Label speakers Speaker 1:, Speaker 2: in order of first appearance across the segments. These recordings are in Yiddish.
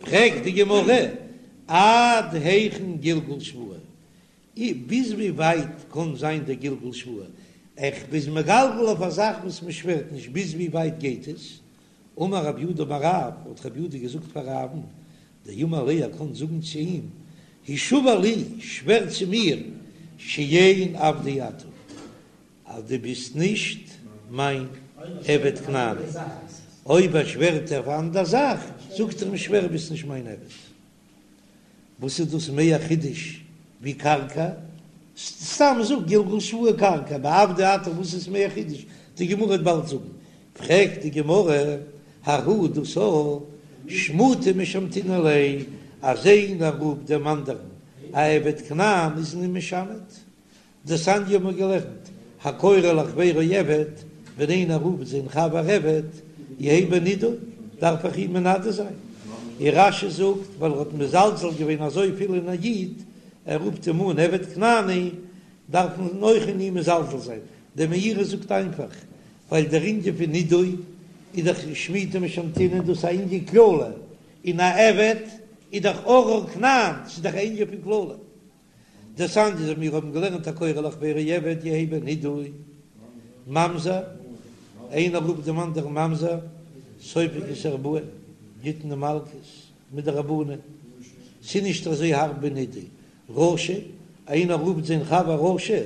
Speaker 1: פרעגט די גמרא, עד היכן גלגול שבועה? ביז ווי ווייט קען זיין דער גלגול שבועה? איך ביז מגלגל אויף א זאך וואס מען שווערט נישט, ביז ווי ווייט גייט עס? אמר רב יהודה אמר רב, האט רב יהודה געזאגט פאר רב'ן, דאמר ליה ער קען זאגן צו אים, השבע לי, שווער צו מיר, שאין עבדי אתה, אז דו ביסט נישט מיין עבד כנעני. אויב ער שווערט אויף אן אנדער זאך, זאגט ער אים שווער ביסט נישט מיין עבד. וואס איז דאס מער חידוש ווי קרקע? סתם זאג גלגול שבועה קרקע, ביי עבדי אתה וואס איז מער חידוש? די גמרא וועט באלד זאגן. פרעגט די גמרא, ההוא דאס א שמותי משמתינן ליה, אז איינער רופט דעם אנדערן א עבד כנען איז מען אים משמת, דתניא האבן מיר געלערנט, הקורא לחבירו עבד, ווען איינער רופט זיין חבר עבד, יהא בנידוי, דארף איך אים מנדה זיין. און רש"י זאגט, ווייל ער האט מזלזל געווען אזויפיל אין א איד, ער רופט אים אן עבד כנעני, דארף מען אויך אין אים מזלזל זיין. דער מאירי זאגט איינפאך, ווייל דער ענין פון נידוי איז דאך שמותי משמתינן דאס א ענין קללה, און א עבד איז דאך ארור כנען, ס'איז דאך א ענין פון קללה. דתניא אז מיר האבן געלערנט הקורא לחבירו עבד יהא בנידוי ממזר, איינער רופט דעם אנדערן ממזר, סופג את הארבעים, גיט מען מלקות מדרבנן, ס'איז נישט אזוי הארב ווי נידוי, רשע, איינער רופט זיין חבר רשע,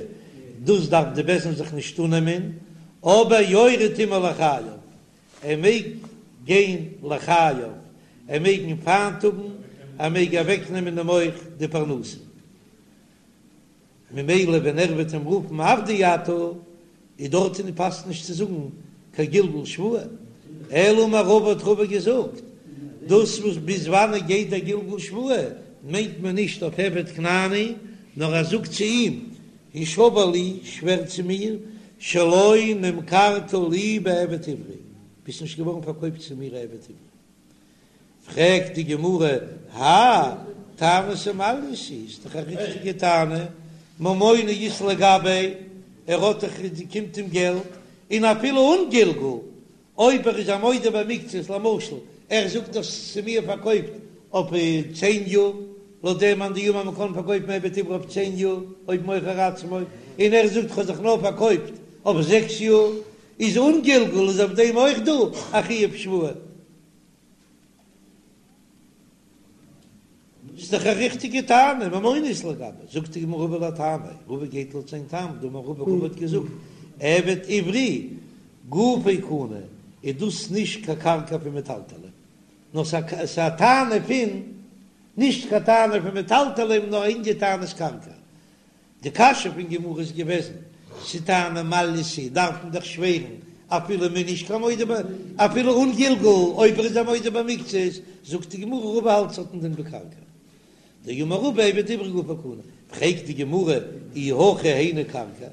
Speaker 1: דאס דארף די בית דין זיך נישט אננעמען, אבער יורד עמו לחייו, ער מעג גיין לחייו, ער מעג אים פיינט האבן, ער מעג אוועקנעמען אים אויך די פרנסה. ממילא ווען ער וועט אים רופן עבדי אתה, איז דארטן פאסט נישט צו זאגן קיין גלגול שבועה. אלא אמר רבא האט רבא געזאגט, דאס וואס ביז וואנען גייט דער גלגול שבועה, מיינט מען נישט אויף עבד כנעני, נאר ער זאגט צו אים, השבע לי, שווער צו מיר, שלא נמכרת לי בעבד עברי, ביסט נישט געווארן פארקויפט צו מיר א עבד עברי. פרעגט די גמרא, האי טענתא מעלייתא היא, איז דאך א ריכטיגע טענה, ממונא אית ליה גביה, ער האט דאך, קומט אים געלט, און אפילו אן גלגול, אויב ער איז א מודה במקצת, למשל ער זאגט האסט צו מיר פארקויפט אויף צען יאר, לויט דעם מאן דאמר מ'קען פארקויפן עבד עברי אויף צען יאר אויב מוכר עצמו, און ער זאגט כ'האב זיך נאר פארקויפט אויף זעקס יאר, איז אן גלגול איז אויף דעם אויך דא א חיוב שבועה. ס'איז דאך א ריכטיגע טענה, ממונא אית ליה גביה, זאגט די גמרא רבא לטעמיה, רבא גייט לויט זיין טעם, דאמר רבא, רבא האט געזאגט, עבד עברי גופו קנוי, איז דאס נישט קיין קרקע פון מטלטלין, נאר ס'איז א טענה פון, נישט קיין טענה פון מטלטלין, נאר א ענין טענת קרקע. די קשיא פון גמרא איז געוועזן, ס'טענה מעלייתא דארף מען דאך שווערן אפילו מ'איז נישט קיין מודה ב אפילו אן גלגול אויב ער איז א מודה במקצת, זאגט די גמרא רבא האלט ס'האט א דין ווי קרקע דאמר רבא עבד עברי גופו קנוי, פרעגט די גמרא אי הכי היינו קרקע,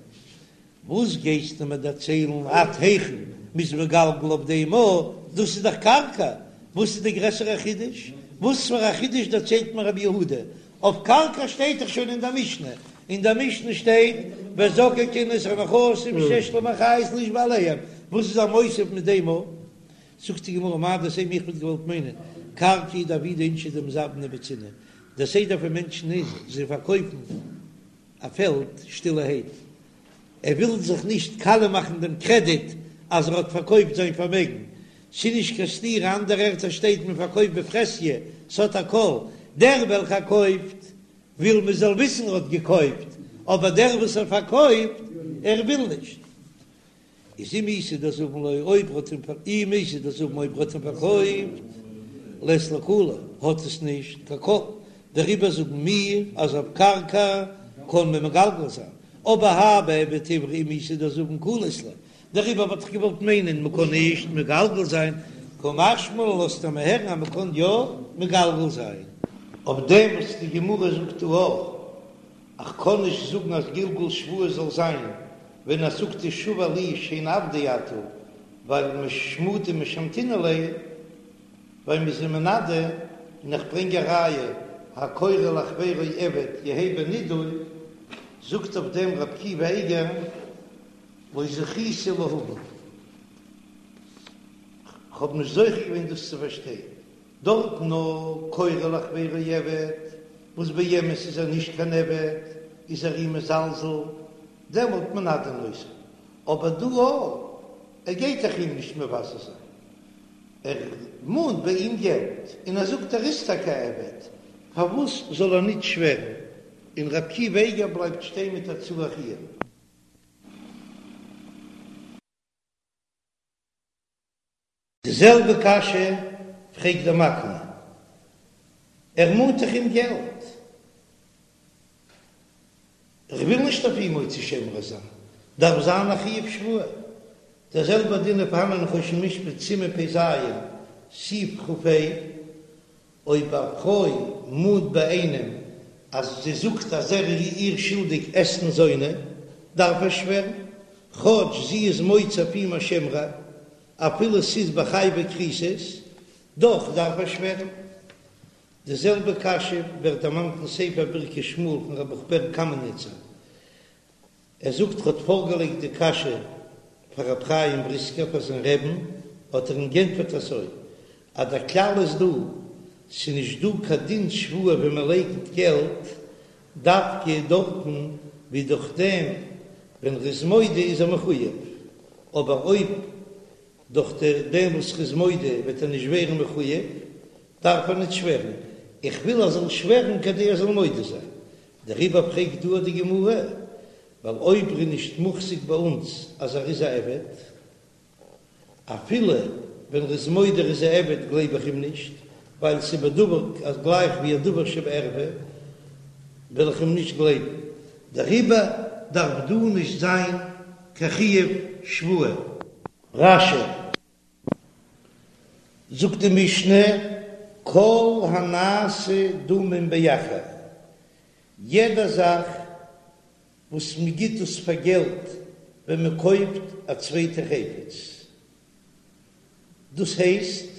Speaker 1: וואס גייסטו מיר דערציילן עד היכן מ'איז מגלגל אויף דעם א, דאס איז דאך קרקע, וואס איז די גרעסערע חידוש? וואס פאר א חידוש דערציילט מיר רבי יהודה? אויף קרקע שטייט דאך שוין אין דער משנה, אין דער משנה שטייט וזוקקין את הנכסים שיש להם אחריות לישבע עליהם, וואס איז ער מוסיף מיט דעם א? זאגט די גמרא מהו דתימא איך וואלט געוואלט מיינען קרקע הוא דעבידי אינשי דמזבני בצנעא, דער סדר פון מענטשן איז זיי פארקויפן א פעלד שטילערהייט, ער וויל זיך נישט קאליע מאכן דעם קרעדיט אז ער האט פארקויפט זיין פארמעגן, ס'איז נישט קיין סתירה, אנדערע ערטער שטייט מען פארקויפט בפרהסיא, ס'האט א קול, דער וועלכער קויפט וויל מען זאל וויסן ער האט געקויפט, אבער דער וואס ער פארקויפט ער וויל נישט. איז אם איתא דזבין ליה אויב ר'האט אים אם איתא דזבין אויב ר'האט אים פארקויפט לית ליה קלא האט עס נישט קיין קול דעריבער זאגן מיר אז אויף קרקע קען מען מגלגל זיין אבער האי בעבד עברי אם איתא דזבין קלא אית ליה דעריבער וואלט איך געוואלט מיינען מ'קען נישט מגלגל זיין קא משמע לן לאזט ער מיר הערן אז מ'קען יא מגלגל זיין. אויף דעם וואס די גמרא זאגט דא אויך איך קען נישט זאגן אז גלגול שבועה זאל זיין ווען ער זאגט השבע לי שאין עבדי אתה, ווייל משמותי משמתינן ליה, ווייל מ'איז אים מנדה, און איך ברענג א ראיה, הקורא לחבירו עבד יהא בנידוי, זאגט אויף דעם רבי עקיבא אייגער לא זכיתי להבין, כ'האב נישט זוכה געווען דאס צו פארשטיין. דארט נאר קורא לחבירו עבד, וואס באמת איז ער נישט קיין עבד, איז ער אים מזלזל, דעמאלט מנדין אותו, אבער דא אויך, ער גייט דאך אים נישט מבזה זיין, ער מאנט ביי אים געלט, און ער זאגט ער איז טאקע א עבד, פארוואס זאל ער נישט שווערן, און ר' עקיבא איגר בלייבט שטיין מיט א צריך עיון. די זעלבע קשיא פרעגט דער מקנה, ער מאנט דאך אים געלט, איך וויל נישט אויף אים מוציא שם רע זיין, דארף זיין א חיוב שבועה. דער זעלבער דין איז פארהאן אין חושן משפט סימן פ"ז, סעיף כ"ה, אויב א פרוי מאנט ביי איינעם אז זי זאגט אז ער איז איר שולדיג אתנן זונה, דארף ער שווערן, כאטש זי איז מוציא אויף אים א שם רע, אפילו ס'איז בחייבי כריתות, דאך דארף ער שווערן. די זעלבע קשיא ווערט דערמאנט אין ספר ברכת שמואל פון ר' ברוך בער קאמעניצער, ער זאגט ער האט פארגעלייגט די קשיא פאר רב חיים בריסקער פאר זיין רעבן, האט ער אים גענטפערט אזוי, אז דער כלל איז דא, ס'איז נישט דא קיין דין שבועה ווען מען לייקנט געלט, דווקא דארטן ווי דורך דעם ווען ר'איז מודה איז ער מחויב, אבער אויב דורך דעם וואס ר'איז מודה וועט ער נישט ווערן מחויב, דארף ער נישט שווערן, איך וויל ער זאל שווערן כדי ער זאל מודה זיין, דעריבער פרעגט דא די גמרא, ווייל אויב ר'איז נישט מוחזק ביי אונז אז ער איז א עבד, אפילו ווען ר'איז מודה ר'איז א עבד גלייב איך אים נישט, ווייל ס'איז בדבר אז גלייך ווי א דבר שבערווה וועל איך אים נישט גלייבן, דעריבער דארף דא נישט זיין קיין חיוב שבועה. רש"י זאגט די משנה, כל הנעשה דמים באחר, יעדע זאך וואס מען גיט עס פאר געלט ווען מען קויפט א צווייטע חפץ, דאס הייסט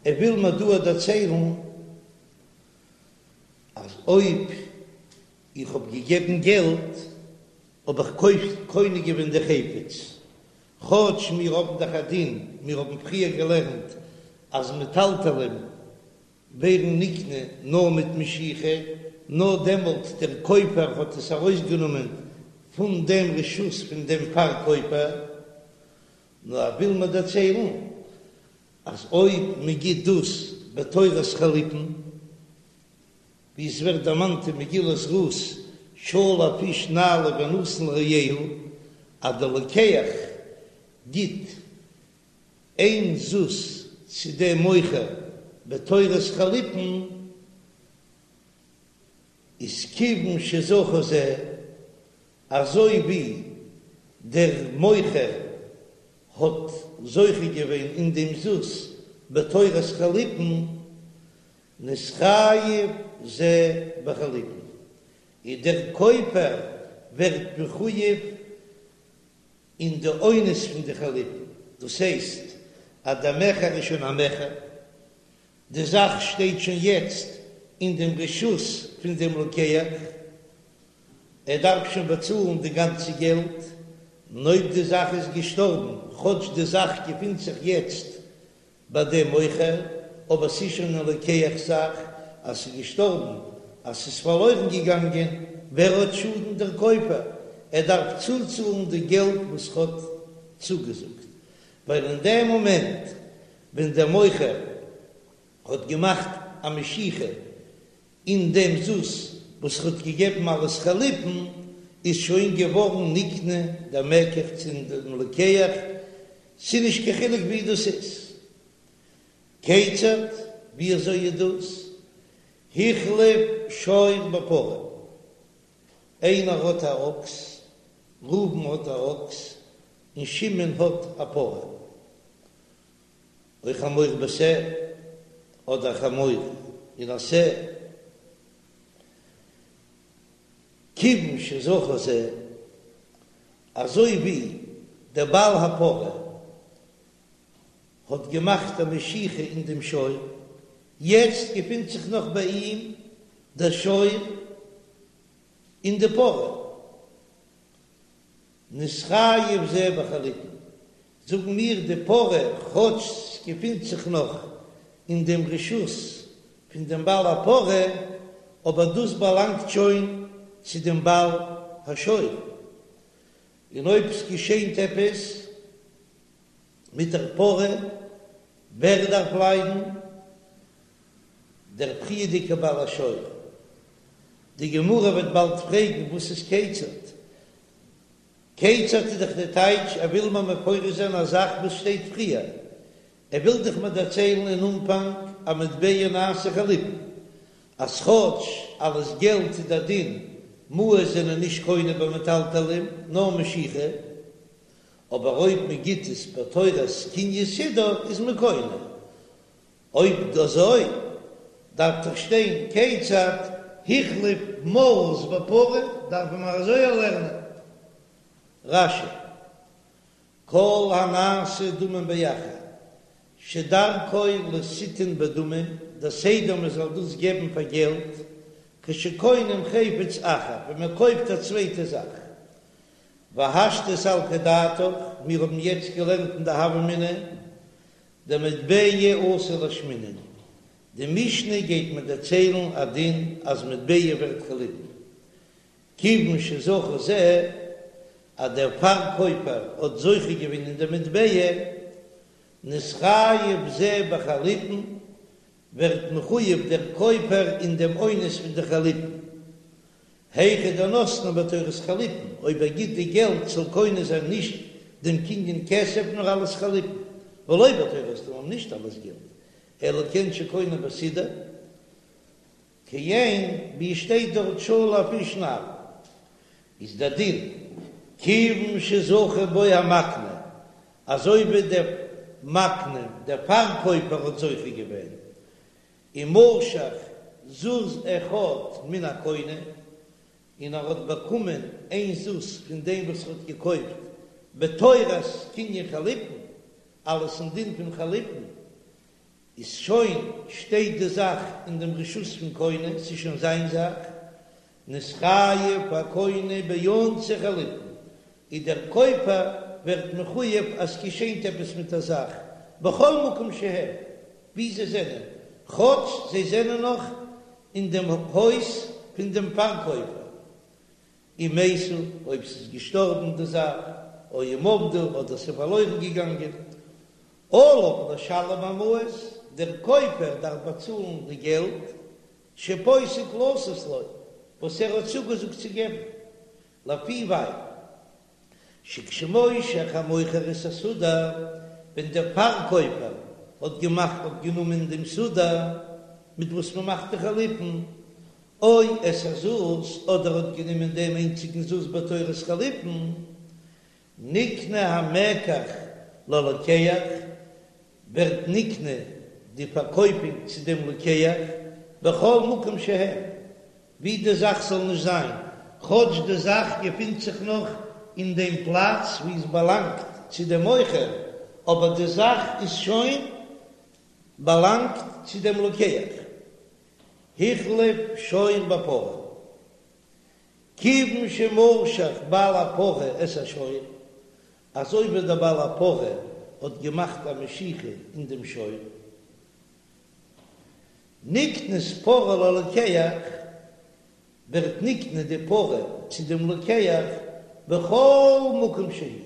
Speaker 1: ער וויל מיר דא דערציילן אז אויב איך האב געגעבן געלט האב איך קונה געווען די חפץ, כאטש מיר האבן דאך א דין, מיר האבן פריער געלערנט אז מטלטלין ווערן נקנה נאר מיט משיכה, נאר דעמאלט דער קויפער האט עס ארויסגענומען פון דעם רשות פון דעם פארקויפער, נאר ער וויל מיר דערציילן אז אויב מען גיט דאס בתורת חליפין, ווי עס ווערט דערמאנט אין מגילת רות, שלף איש נעלו ונתן לרעהו, אז דער לוקח גיט איין זוז צו דעם מוכר בתורת חליפין, איז כיוון שזכה זה, אזוי ווי דער מוכר האט זוכה געווען אין דעם זוז בתורת חליפין, נתחייב זה בחליפין, און דער קויפער ווערט מחויב אין די אונס פון די חליפין, דאס הייסט אז דער מכר איז שוין א מכר, די זאך שטייט שוין יעצט אין דעם רשות פון דעם לוקח, ער דארף שוין באצאלן די גאנצע געלט, און אויב די זאך איז געשטארבן, כאטש די זאך געפינט זיך יעצט ביי דעם מוכר, אבער ס'איז שוין א לוקח'ס זאך, אז ס'איז געשטארבן, אז ס'איז פארלוירן געגאנגען, ווער האט שאדן? דער קויפער, ער דארף צוצאלן די געלט וואס ר'האט צוגעזאגט, ווייל אין דעם מאמענט ווען דער מוכר האט געמאכט א משיכה אין דעם זוז וואס ר'האט געגעבן אלס חליפין, איז שוין געווארן נקנה דער מקח צו דעם לוקח, ס'איז נישט קיין חילוק ווי דאס איז. כיצד, ווי אזוי איז דאס? החליף שור בפרה, איינער האט א אקס, ראובן האט א אקס, און שמעון האט א פרה. או חמור בשה, אדער חמור אין א שה, כיוון שזכה זה, אזוי ווי דער בעל הפרה האט געמאכט א משיכה אין דעם שור, יעצט געפינט זיך נאך ביי אים דער שור און די פרה. נתחייב זה בחליפין, זאגן מיר די פרה כאטש ס'געפינט זיך נאך. אין דעם רשות פון דעם בעל הפרה, אבער דאס באלאנגט שוין צו דעם בעל השור, און אויב ס'געשענט עפעס מיט דער פרה, ווער דארף ליידן? דער פריערדיגער בעל השור. די גמרא וועט באלד פרעגן וואס איז כיצד? כיצד איז דאך די טייטש ער וויל מיר מפרש זיין א זאך וואס שטייט פריער, ער וויל דאך מיר דערציילן אין אנפאנג אז מטבע נעשה חליפין, אז כאטש אלס געלט איז דער דין מעות זענען נישט קונה במטלטלין נאר משיכה, אבער אויב מען גיט עס בתורת קנין סודר איז מען קונה. אויב אזוי דארף דאך שטיין כיצד החליף מעות בפרה, דארפן מיר אזוי לערנען רש"י כל הנעשה דמים באחר שדרכו ליתן בדמים, דער סדר מען זאל דאס געבן פאר געלט, כשקונים חפץ אחר, ווען מען קויפט א צווייטע זאך. והשתא סלקא דעתך, מיר האבן יעצט געלערנט אין די הוה אמינא, דמטבע אתי לאשמועינן, די משנה גייט מיר דערציילן א דין אז מטבע ווערט חליפין, כיוון שזכה זה, אז דער פארקויפער האט זוכה געווען אין די מטבע, נתחייב זה בחליפין, ווערט מחויב דער קויפער אין דעם אונס פון די חליפין. היכא דנתנו בתורת חליפין, אויב ער גיט די געלט זאל קונה זיין נישט דעם קנין כסף נאר אלס חליפין, ולא בתורת דמים נישט אלס געלט, אלא כעין שקונה בסודר, כעין ווי עס שטייט דארט שלף איש נעל, איז דער דין כיוון שזכה בו המקנה, אזוי ווי דער מקנה, דער פארקויפער האט זוכה געווען, ומשך זוז אחד מן הקונה, און ער האט באקומען איין זוז פון דעם וואס ער האט געקויפט בתורת קנין חליפין, אלס אין דין פון חליפין, איז שוין שטייט די זאך אין דעם רשות פון קונה, ס'איז שוין זיין זאך, נתחייב הקונה באונסי חליפין, איז דער קויפער ווערט מחויב אז ס'געשענט עפעס מיט א זאך, בכל מקום שהם, ווי זיי זענען, כאטש זיי זענען נאך אין דעם הויז פון דעם פארקויפער, אם מתו, אויב ס'איז געשטארבן די זאך, או אם אבדו, אדער ס'איז פארלוירן געגאנגען, עליו לשלם המעות, דער קויפער דארף באצאלן די געלט, שפוסק לתת לו, וואס ער האט צוגעזאגט צו געבן, לפי ווייל שכשמושך המוכר את הסודר, ווען דער פארקויפער האט געמאכט האט גענומען דעם סודר מיט וואס מען מאכט די חליפין, או את הזוז, אדער האט גענומען דעם איינציגן זוז בתורת חליפין, נקנה המקח ללוקח, ווערט נקנה די פארקויפונג צו דעם לוקח, בכל מקום שהם, ווי די זאך זאל נישט זיין, כאטש די זאך געפינט זיך נאך אין דעם פלאץ וואו עס באלאנגט צו דעם מוכר, אבער די זאך איז שוין באלאנגט צו דעם לוקח. החליף שור בפרה. כיוון שמשך בעל הפרה את השור, אזוי ווי דער בעל הפרה האט געמאכט א משיכה אין דעם שור, נקנית פרה ללוקח, ווערט נקנה די פרה צו דעם לוקח בכל מקום שהיא,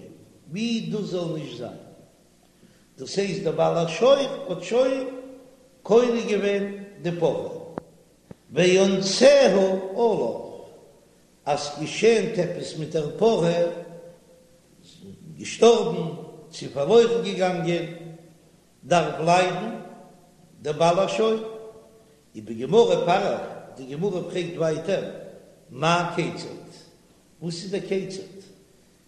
Speaker 1: ווי דאס זאל נישט זיין, דאס הייסט דער בעל השור האט שוין קונה געווען די פרה. ואונסיה עליו, אז ס'געשענט עפעס מיט דער פרה, געשטארבן צו פארלוירן געגאנגען, דארף ליידן דער בעל השור. ובגמרא פריך, די גמרא פרעגט ווייטער, מאי כיצד? וואס איז דער כיצד?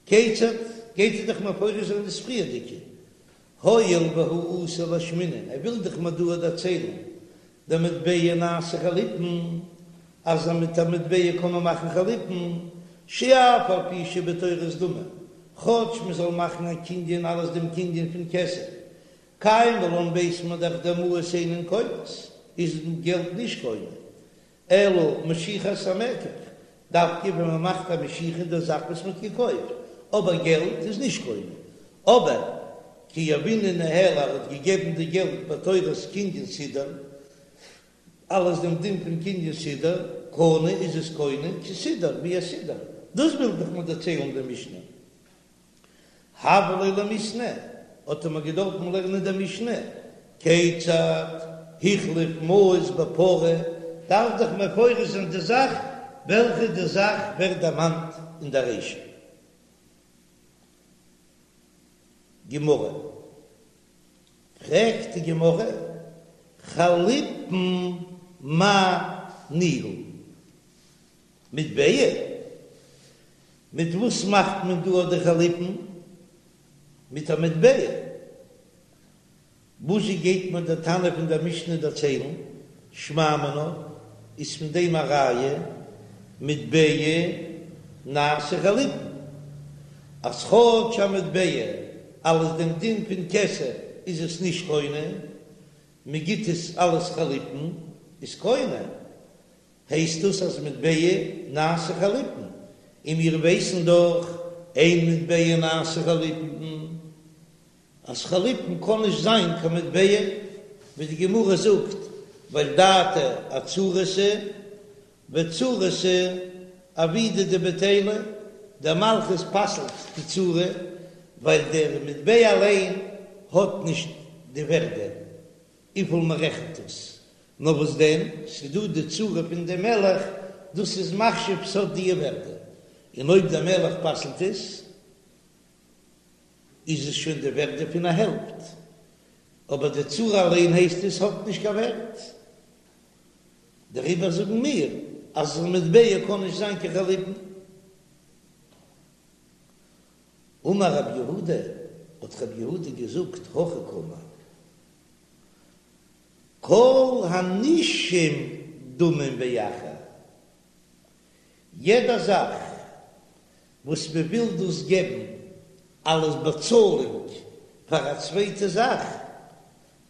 Speaker 1: כיצד גייט ער דאך מפרש זיין דאס פריערדיגע, הואיל והוא אתא לאשמועינן, ער וויל דאך מיר דא דערציילן דמטבע נעשה חליפין, אז מיט א מטבע קען מען מאכן חליפין, שאף על פי שבתורת דמים, כאטש מען זאל מאכן א קנין אלס דעם קנין פון כסף, קיימא לן ווייסט מען דאך דמעות אינן קונות, איז געלט נישט קונה, אלא משיכת המקח, דווקא ווען מען מאכט א משיכה אין דער זאך וואס מען האט געקויפט, אבער געלט איז נישט קונה. אבער. כי יהבינהו ניהליה ער האט געגעבן די געלט בתורת קנין סודר, אלס דעם דין פון קנין סודר, קנה איז עס קונה כסודר ווי א סודר, דאס וויל דאך מיר דערציילן די משנה. הוה ליה למיתנא, האט ער מיר געדארפן לערנען די משנה, כיצד החליף מעות בפרה, דארף דאך מפורש זיין די זאך וועלכע די זאך ווערט דערמאנט אין די רישא. גמרא, פרעגט די גמרא, חליפין מאי ניהו? מטבע? מיט וואס מאכט מען דא די חליפין? מיט א מטבע. וואזשע גייט מיר דער תנא פון דער משנה דערציילן? שמע מינה, איז פון דעם א ראיה, מטבע נעשה חליפין, אז כאטש א מטבע אלס דעם דין פון כסף איז עס נישט קונה, מען גיט עס אלס חליפין איז קונה, הייסט דאס אז מטבע נעשה חליפין, און מיר ווייסן דאך אין מטבע נעשה חליפין, אז חליפין קען נישט זיין קיין מטבע, ווי די גמרא זאגט, ווייל דעתא אצורתא וצורתא עבידא דבטילה, דער מלכות פסל'ט די צורה, ווייל דער מטבע אליין האט נישט די ווערדע וויפיל מען רעכנט עס, נאר וואס דען, ס'דא די צורה פון דעם מלך, דאס איז מחשיב ס'האט די ווערדע, און אויב דער מלך פסל'ט עס, איז עס שוין די ווערדע פון א העלפט, אבער די צורה אליין הייסט עס האט נישט קיין ווערט, דעריבער זאגן מיר אז מטבע קען נישט זיין קיין חליפין. אמר רב יהודה, האט רב יהודה געזאגט, הכי קאמר, כל הנישום דמים באחר, יעדע זאך וואס מען וויל דאס געבן אלס באצאלונג פאר א צווייטע זאך,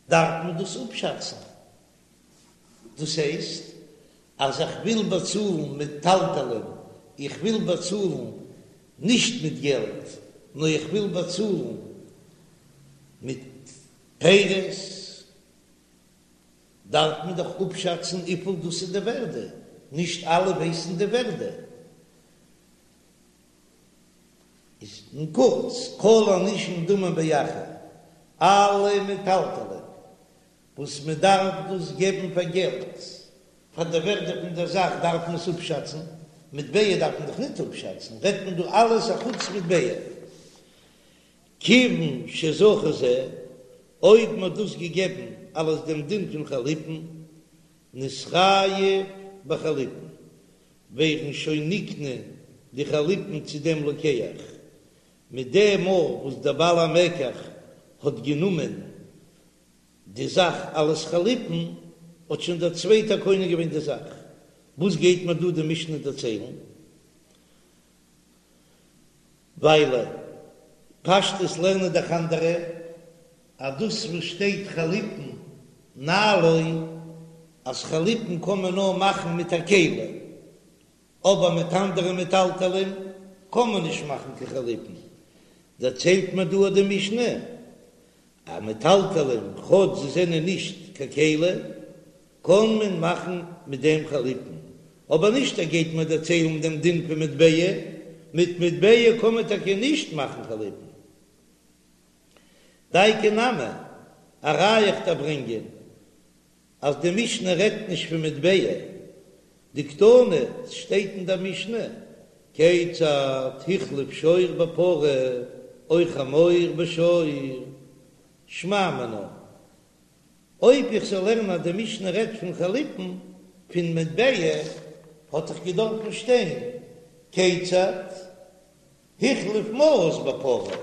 Speaker 1: דארף מען דאס אפשאצן. דאס הייסט אז איך וויל באצאלן מטלטלין, איך וויל באצאלן נישט מיט געלט, נאר איך וויל באצאלן מיט פירות, דארף מען דאך אפשאצן וויפיל דאס איז די ווערדע, נישט אלע ווייסן די ווערדע. איז אין קורץ, כל הנישום דמים באחר, אלע מטלטלין וואס מען דארף דאס געבן פאר געלט, פאר די ווערדע פון דער זאך דארף מען עס אפשאצן, מטבע דארף מען דאך ניט אפשאצן, רעדט מען דא אלעס אחוץ מטבע. כיוון שזכה זה, אויב מען האט דאס געגעבן אלס דעם דין פון חליפין, נתחייב בחליפין, ווערן שוין נקנה די חליפין צו דעם לוקח, מיט דעם מאל וואס דער בעל המקח האט גענומען די זאך אלס חליפין, האט שוין דער צווייטער קונה געווען די זאך. וואס גייט מיר דא די משנה דערציילן? ווייל פשטות לערנען דאך אנדערע אז דאס וואס שטייט חליפין נעלו אז חליפין קען מען נאר מאכן מיט א כלי, אבער מיט אנדערע מטלטלין קען מען נישט מאכן קיין חליפין, דערציילט מיר דא די משנה אז מטלטלין כאטש זיי זענען נישט קיין כלי קען מען מאכן מיט דעם חליפין, אבער נישט ער גייט מיר דערציילן דעם דין פון מטבע, מיט מטבע קען מען טאקע נישט מאכן חליפין. דייקא נמי, א ראיה איך דיר ברענגען אז די משנה רעדט נישט פון מטבע, דקתני, ס'שטייט אין דער משנה, כיצד החליף שור בפרה או חמור בשור, שמע מינה, אויב איך זאל לערנען אז די משנה רעדט פון חליפין פון מטבע, האט דאך געדארפן שטיין כיצד החליף מעות בפרה,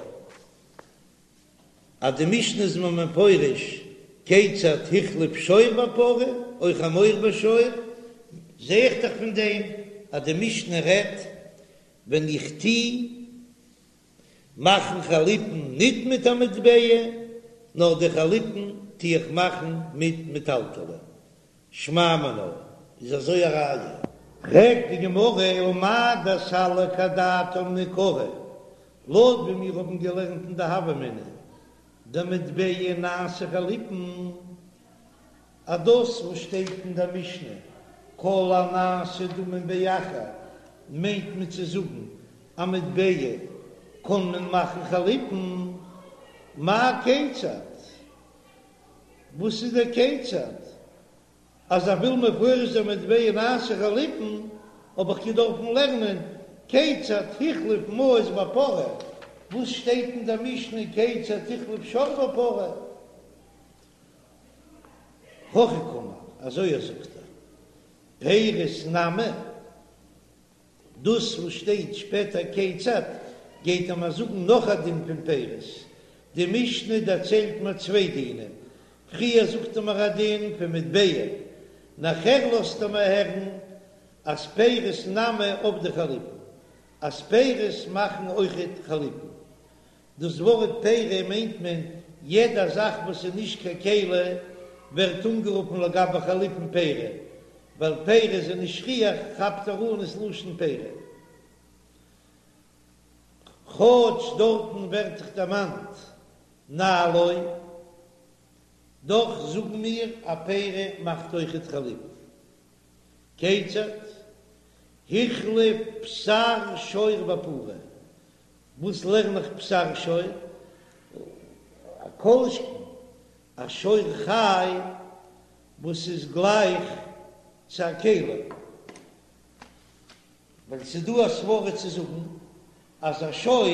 Speaker 1: אז די משנה איז מיר מפרש כיצד החליף שור בפרה או חמור בשור, זע איך דאך פון דעם אז די משנה רעדט ווען איך טו מאכן חליפין ניט מיט א מטבע, נאר די חליפין טו איך מאכן מיט מטלטלין. שמע מינה, איז אזוי א ראיה. פרעגט די גמרא ומאי דסליק אדעתין מעיקרא, לויט ווי מיר האבן געלערנט אין די הוה אמינא. דמטבע נעשה חליפין, אז דאס וואס שטייט אין דער משנה כל הנעשה דמים באחר מיינט מען צו זאגן א מטבע קען מען מאכן חליפין, מאי כיצד? וואס איז דער כיצד? אז איך וויל מפרש זיין מטבע נעשה חליפין האב איך געדארפן לערנען כיצד החליף מעות בפרה, וואס שטייט אין דער משנה כיצד החליף שור בפרה? הכי קאמר, אזוי זאגט ער, פירות נמי, דאס וואס שטייט שפעטער כיצד, גייט ער מיר זאגן נאך א דין פון פירות, די משנה דערציילט מיר צוויי דינים, פריער זאגט ער מיר א דין פון מטבע, נאכער לאזט ער מיר הערן אז פירות נמי עבדי חליפין, אז פירות מאכן אויכעט חליפין. דאס ווארט פירי מיינט מען יעדע זאך וואס איז נישט קיין כלי ווערט אנגערופן לגבי חליפין פירי, ווייל פירי זענען נישט שכיח כאפט ער אן עס לשון פירי. כאטש דארטן ווערט דאך דערמאנט נעלו, דאך זאגן מיר א פירי מאכט אויכעט חליפין. כיצד? החליף בשר שור בפרה, וואס לערן איך בשר שור? א כל שכן א שור חי וואס איז גלייך צו א כלי, ווייל ס'איז דא א סברא צו זאגן אז א שור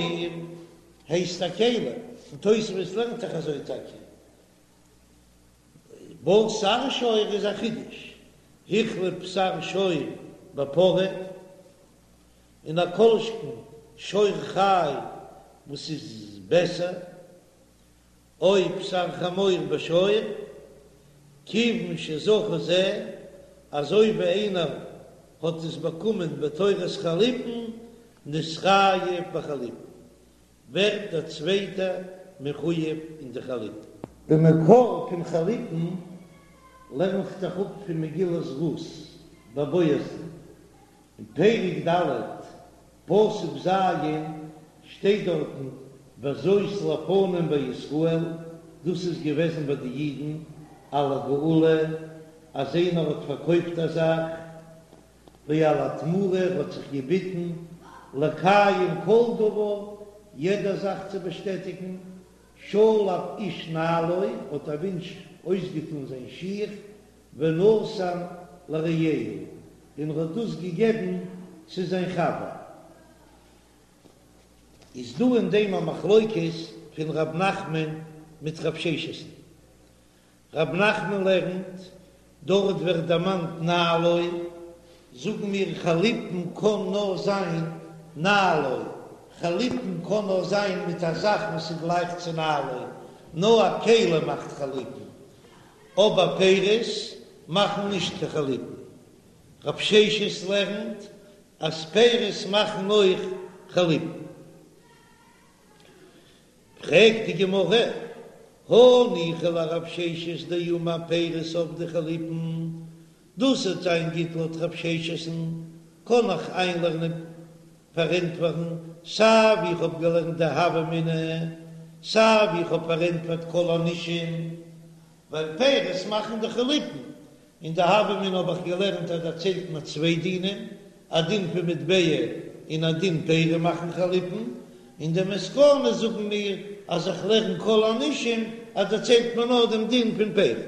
Speaker 1: הייסט א כלי, און תוספות לערנט דאך אזוי טאקע, בשר שור איז א חידוש, החליף בשר שור בפרה. און א כל שכן שור חי וואס איז בעסער, או בשר חמור בשור, כיוון שזכה זה, אזוי ווי איינער האט עס באקומען בתורת חליפין, נתחייב בחליפין, ווערט דער צווייטער מחויב אין די חליפין. די מקור פון חליפין לערנט זיך אפ פון מגילת רות ביי בועזן, אין פרק ד' פסוק ז' שטייט דארטן וזאת לפנים בישראל, דאס איז געוועזן ביי די אידן על הגאולה אז איינער האט פארקויפט א זאך, ועל התמורה האט זיך געביטן לקיים כל דבר, יעדע זאך צו באשטעטיגן, שלף איש נעלו, האט א מענטש אויסגעטאן זיין שיך, ונתן לרעהו, און ער האט דאס געגעבן צו זיין חבר. איז דא אין דעם א מחלוקת פון ר' נחמן מיט רב ששת'ן. ר' נחמן לערנט, דארט ווערט דערמאנט נעלו, זאגן מיר חליפין קען נאר זיין נעלו, חליפין קען נאר זיין מיט א זאך וואס איז גלייך צו נעלו, נאר א כלי מאכט חליפין, אבער פירות מאכן נישט קיין חליפין. רב ששת לערנט אז פירות מאכן אויך חליפין. פרעגט די גמרא, הניחא לרב ששת דאמר פירות עבדי חליפין, דאס וועט זיין גוט לויט רב ששת'ן, קען איך איינלערנען פארענטפערן סיי ווי איך האב געלערנט די הוה אמינא, סיי ווי איך האב פארענטפערט כל הנישום, ווייל פירות מאכן דאך חליפין, אין די הוה אמינא האב איך געלערנט אז דערציילט מען צוויי דינים, א דין פון מטבע און א דין פירות מאכן חליפין, אין די מסקנא זאגן מיר אז איך לערן כל הנישום אז דערציילט מען נאר דעם דין פון פירות.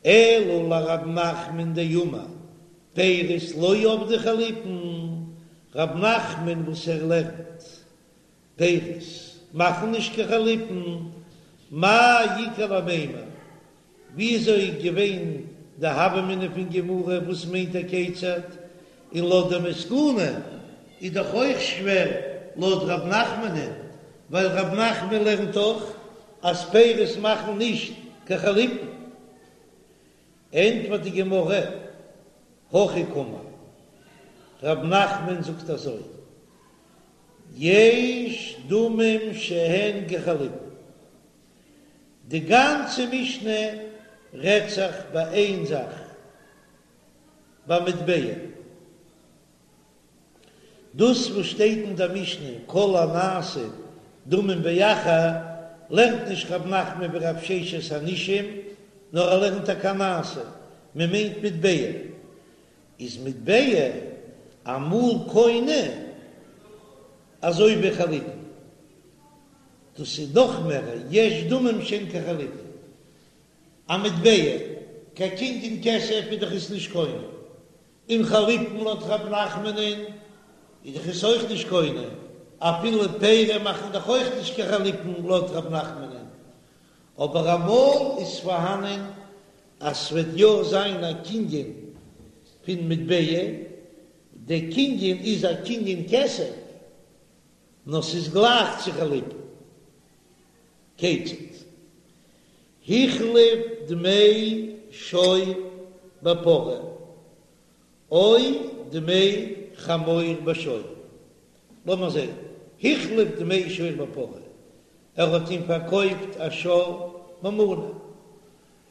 Speaker 1: אלא לרב נחמן דאמר פירות לא עבדי חליפין, רב נחמן וואס ער לערנט פירות מאכן נישט קיין חליפין, מאי איכא למימר, וויאזוי איז געווען די הוה אמינא פון גמרא וואס מיינט ער כיצד, און לויט די מסקנא איז דאך אויך שווער לויט רב נחמנ'ן, ווייל רב נחמן לערנט דאך אז פירות מאכן נישט קיין חליפין. ענטפערט די גמרא, הכי קאמר, רב נחמן זאגט אזוי, יש דמים שהן כחליפין, די גאנצע משנה רעדט זיך ביי איין זאך, ביי מטבע. דאס וואס שטייט אין דער משנה כל הנעשה דמים באחר. לערנט נישט רב נחמן ווי רב ששת הנישום, נאר ער לערנט טאקע נעשה, מען מיינט מטבע, איז מטבע אמאל קונה אזוי ווי חליפין, דאס איז נאך מער יש דמים שהן כחליפין, א מטבע, קיין קנין כסף איז דאך עס נישט קונה, און חליפין לויט רב נחמנ'ן איז דאך עס אויך נישט קונה, אפילו פירות מאכן דאך אויך נישט קיין חליפין לויט רב נחמנ'ן, אבער אמאל איז פארהאנען אז ס'וועט יא זיין א קנין פון מטבע, דער קנין איז א קנין כסף, נאר ס'איז גלייך צו חליפין. כיצד? החליף דמי שור בפרה, או דמי חמור בשור. לאמיר זען, החליף דמי שור בפרה, ער האט אים פארקויפט א שור במנה.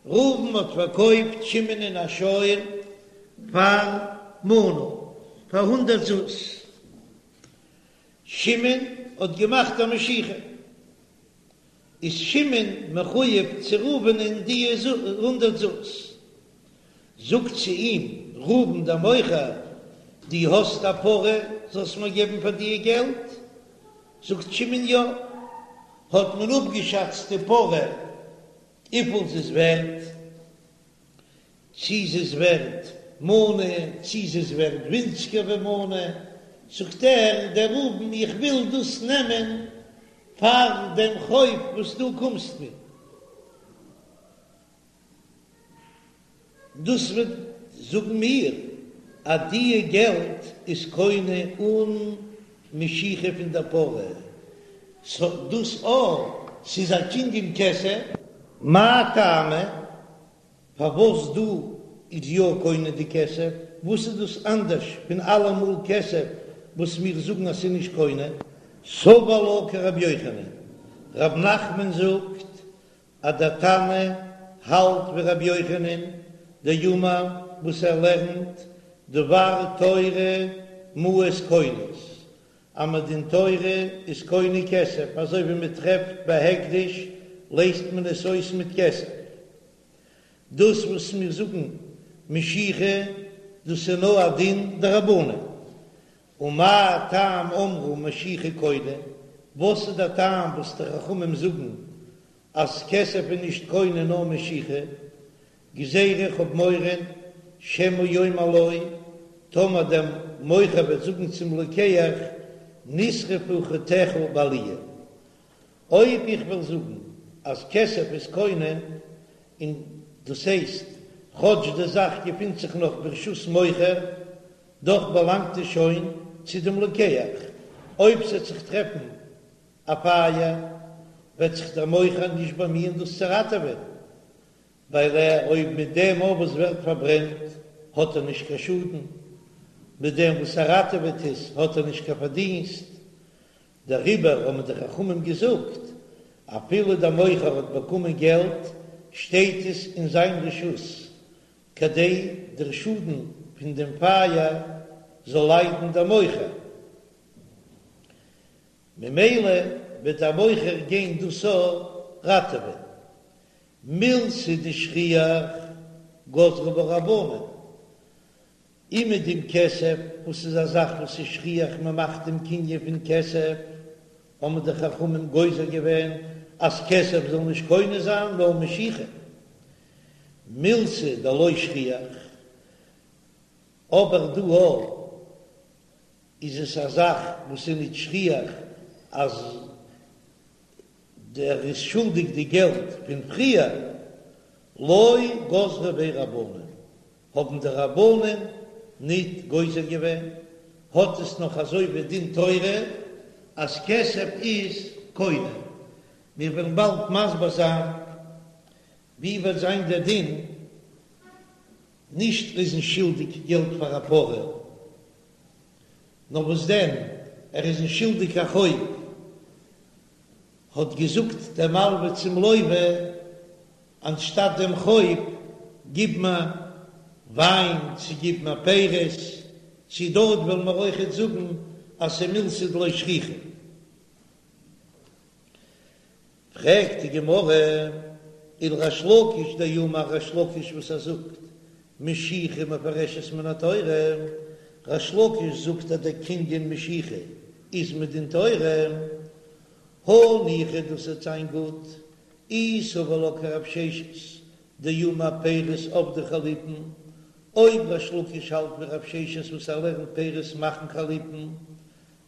Speaker 1: ראובן האט פארקויפט שמעונ'ען א שור פאר מנה, פאר הונדערט זוז. שמעון האט געמאכט א משיכה. איז שמעון מחויב צו ראובנ'ען די הונדערט זוז. זאגט צו אים ראובן דער מוכר, דו האסט א פרה זאלסט מיר געבן פאר די געלט? זאגט שמעון יא. האט מען אפגעשאצט די פרה וויפיל זי איז ווערט, צי זי איז ווערט מנה, צי זי איז ווערט ווינציגער ווי מנה, זאגט ער, דער ראובן, איך וויל דאס נעמען פאר דעם חוב וואס דו קומסט מיר. דאס וועט זאגן מיר אז דיע געלט איז קונה אן משיכה פון דער פרה, סא דאס א ס'איז א קנין כסף. מאי טעמא? פארוואס דא איז יא קונה די כסף? וואס איז דאס אנדערש פון אלעמאל כסף וואס מיר זאגן אז ס'איז נישט קונה? סבר לה כרבי יוחנן, רב נחמן זאגט אז דער תנא האלט ווי רבי יוחנן דאמר וואס ער לערנט דבר תורה מעות קונות, אז מדין תורה איז קונה כסף, אזוי ווי מען טרעפט ביי הקדש לייזט מען עס אויס מיט כסף. דאס וואס מיר זאגן משיכה דאס איז נאר א דין דרבנן. ומה טעם אמרו משיכה קונה, וואס איז דער טעם וואס די חכמים זאגן אז כסף איז נישט קונה נאר משיכה, גזירה איך האב מורא שמא יאמר לו, טאמער דער מוכר וועט זאגן צום לוקח נשרפו חטיך בעליה, אויב איך וועל זאגן אז כסף איז קונה, און דאס הייסט כאטש די זאך געפינט זיך נאך ברשות מוכר, דאך באלאנגט עס שוין צו דעם לוקח, אויב ס'וועט זיך טרעפן א פייער וועט זיך דער מוכר נישט באמיען דאס צו ראטעווען, ווייל ער אויב מיט דעם אויף וואס ווערט פארברענט האט ער נישט קיין שאדן, מיט דעם וואס ער ראטעוועט עס האט ער נישט קיין פארדינסט, דעריבער האבן די חכמים געזאגט, אפילו דער מוכר האט באקומען געלט שטייט עס אין זיין רשות, כדי דער שאדן פון דעם פייער זאל ליידן דער מוכר. ממילא וועט דער מוכר גיין דאס ראטעווען. מילתא דשכיח גזרו בה רבנן, און מיט דעם כסף וואס איז א זאך וואס איז שכיח מען מאכט דעם קנין פון כסף, האבן די חכמים גוזר געווען אז כסף זאל נישט קונה זיין נאר משיכה. מילתא דלא שכיח, אבער דא איז עס א זאך וואס איז נישט שכיח אז דער איז שולדיג די געלט פון פריער, לא גזרו ביה רבנן, האבן די רבנן ניט גוזר געווען, האט עס נאך אזוי ווי דין תורה אז כסף איז קונה. מיר וועלן באלד מסביר זיין ווי וועט זיין דער דין נישט איז אים שולדיג געלט פאר א פרה, נאר וואס דען ער איז אים שולדיג א חוב, האט געזאגט דער מלווה צום לווה, אנשטאט דעם חוב גיב מיר וויין, צו גיב מיר פירות, צו דארט וועלן מיר אויכעט זאגן אז ס'איז מילתא דלא שכיחא. פרעגט די גמרא, ולריש לקיש דאמר ריש לקיש וואס ער זאגט משיכה מופרשת מן התורה, ריש לקיש זאגט אז דער קנין משיכה איז מדין תורה, הניחא דאס וועט זיין גוט, אי סבר לה כרב ששת דאמר פירות עבדי חליפין, אויב ריש לקיש האלט ווי רב ששת וואס ער לערנט פירות מאכן חליפין,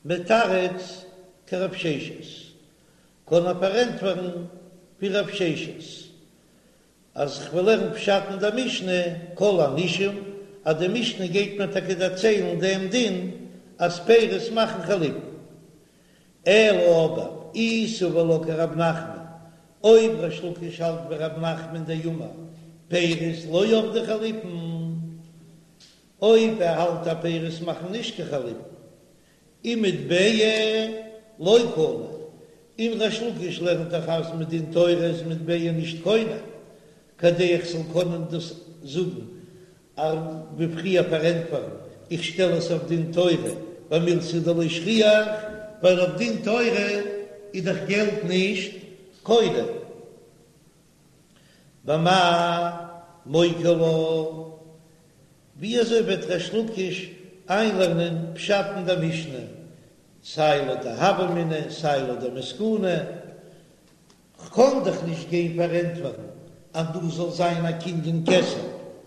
Speaker 1: מתרץ כרב ששת, קען ער פארענטפערן ווי רב ששת אז כ'וועל לערנען פשט אין דער משנה כל הנישום, אז די משנה גייט מיר טאקע דערציילן דעם דין אז פירות מאכן חליפין. אלא אבער אי סבר לה כרב נחמן, אויב ריש לקיש האלט ווי רב נחמן דאמר פירות לא עבדי חליפין, אויב ער האלט אז פירות מאכן נישט קיין חליפין, ומטבע לא קני, און ריש לקיש לערנט דאך אז מדין תורה איז מטבע נישט קונה, כדי איך זאל קענען דאס זאגן ווי פריער פארענטפערן, איך שטעל עס אויף דין תורה במילתא דלא שכיח, ווייל אויף דין תורה איז דאך געלט נישט קונה. במאי מוקי לה, ווי אזוי וועט ריש לקיש איינלערנען פשט אין דער משנה, סיי לויט די הוה אמינא סיי לויט די מסקנא? כ'קען דאך נישט גיין פארענטפערן אז דא זאל זיין א קנין כסף,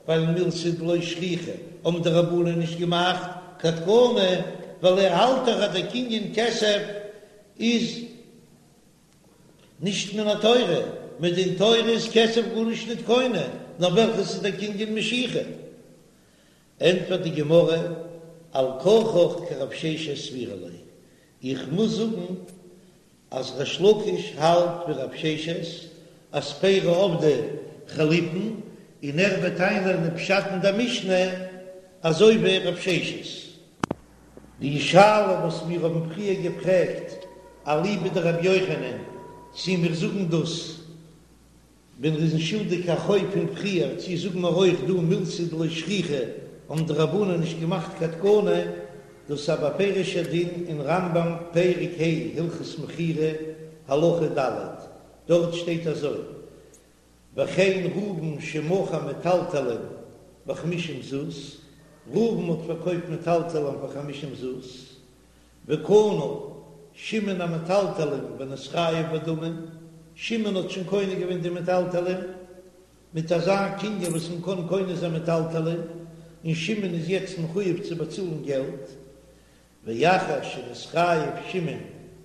Speaker 1: ווייל מילתא דלא שכיחא האבן די רבנן נישט געמאכט קיין תקנה, ווייל ער האלט דאך אז דער קנין כסף איז נישט מן התורה, מדין תורה איז כסף גארנישט ניט קונה, נאר וועלכעס איז דער קנין משיכה? ענטפערט די גמרא, על כרחך כרב ששת סבירא ליה, איך מוז זאגן אז ריש לקיש האלט ווי רב ששת אז פירי עבדי חליפין, און ער וועט איינלערנען פשט אין דער משנה אזוי ווי רב ששת. די שאלה וואס מיר האבן פריער געפרעגט אליבא דרבי יוחנן, צי מיר זאגן דאס ווען ר'איז שולדיג א חוב פון פריער, צי זאגן מיר אויך דא מילתא דלא שכיחא האבן די רבנן נישט געמאכט קיין תקנה, דאס איז א בפירוש'ער דין אין רמב"ם פרק ה' הלכות מכירה הלכה ד', דארט שטייט אזוי, וכן ראובן שמכר מטלטלין בחמישים זוז, ראובן האט פארקויפט מטלטלין פאר חמישים זוז, וקנה שמעון המטלטלין ונתחייב בדמים, שמעון האט שוין קונה געווען די מטלטלין מיט אזא קנין וואס מען קען קונה זיין מטלטלין, און שמעון איז יעצט מחויב צו באצאלן געלט, ואחר שנתחייב שמעון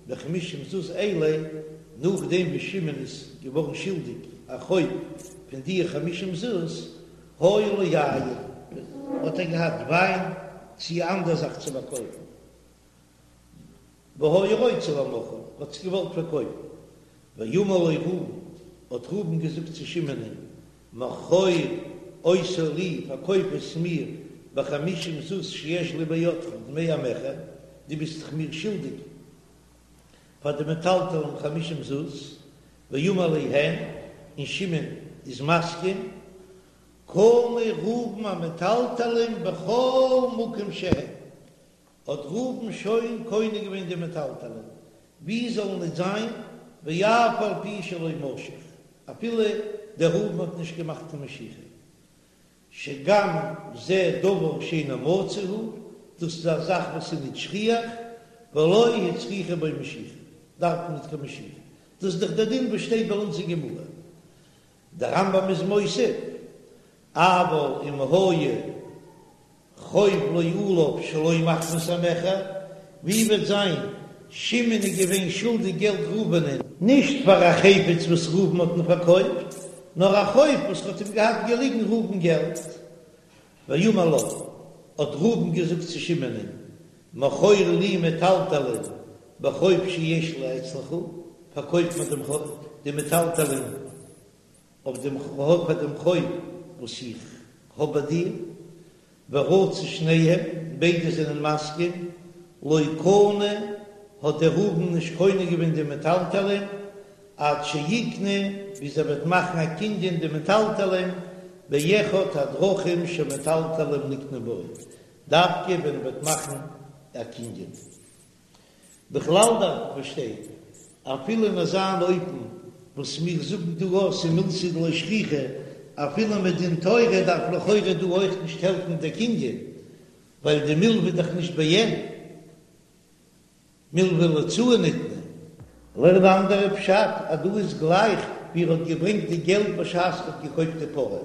Speaker 1: בחמישים זוז אלה, נאכדעם ווי שמעון איז געווארן שולדיג א חוב פון די חמישים זוז, היה לו יין, האט ער געהאט וויין צי אנדער זאך צו פארקויפן, והיה רוצה למוכרן, האט עס געוואלט פארקויפן, ואמר לו ראובן, האט ראובן געזאגט צו שמעונ'ען, מכור אותו לי, פארקויף עס מיר בחמישים זוז שיש לי בידך דמי המכר, דו ביסט דאך מיר שולדיג פאר די מטלטלין חמישים זוז, ואמר ליה הן, און שמעון איז מסכים, קנה ראובן המטלטלין בכל מקום שהם, האט ראובן שוין קונה געווען די מטלטלין, ווי זאלן ניט זיין, ואף על פי שלא משך, אפילו דער ראובן האט נישט געמאכט קיין משיכה, שגם זה דבר שאינו מצוי הוא, דאס איז א זאך וואס איז ניט שכיח, ולא הצריכו בו משיכה, דארף מען ניט קיין משיכה, דאס איז דאך דער דין וואס שטייט ביי אונז אין גמרא. דער רמב"ם איז מוסיף, אבל אם היה חוב לו עליו שלא מחמת המכר, ווי וועט זיין שמעון איז געווען שולדיג געלט ראובנ'ען, נישט פאר א חפץ וואס ראובן האט אים פארקויפט, נאר א חוב וואס האט אים געהאט געליגן ראובן געלט. ואמר לו, האט ראובן געזאגט צו שמעונ'ען, מכור לי מטלטלין בחוב שיש לי אצלך, פארקויף מיר דעם די מטלטלין אויף דעם חוב פאר דעם חוב וואס איך האב ביי דיר, ורצו שניהם, ביידע זענען מסכים, לא קנה, האט דער ראובן נישט קונה געווען די מטלטלין, עד שיקנה, ביז ער וועט מאכן א קנין די מטלטלין, באחד הדרכים שמטלטלין נקנין בו, דווקא ווען ער וועט מאכן א קנין. בכלל דארף מען פארשטיין, אפילו אין אזא אופן. וואס מיר זאגן דא אז ס'איז מילתא דלא שכיחא, אפילו מדין תורה דארף לכאורה דא אויך נישט העלפן דער קנין, ווייל די מלוה איז דאך נישט בעין, מלוה להוצאה ניתנה. לערן אן אנדערע פשט אז דא איז גלייך ווי ער האט געברענגט די געלט בשעת ער האט געקויפט די פרה.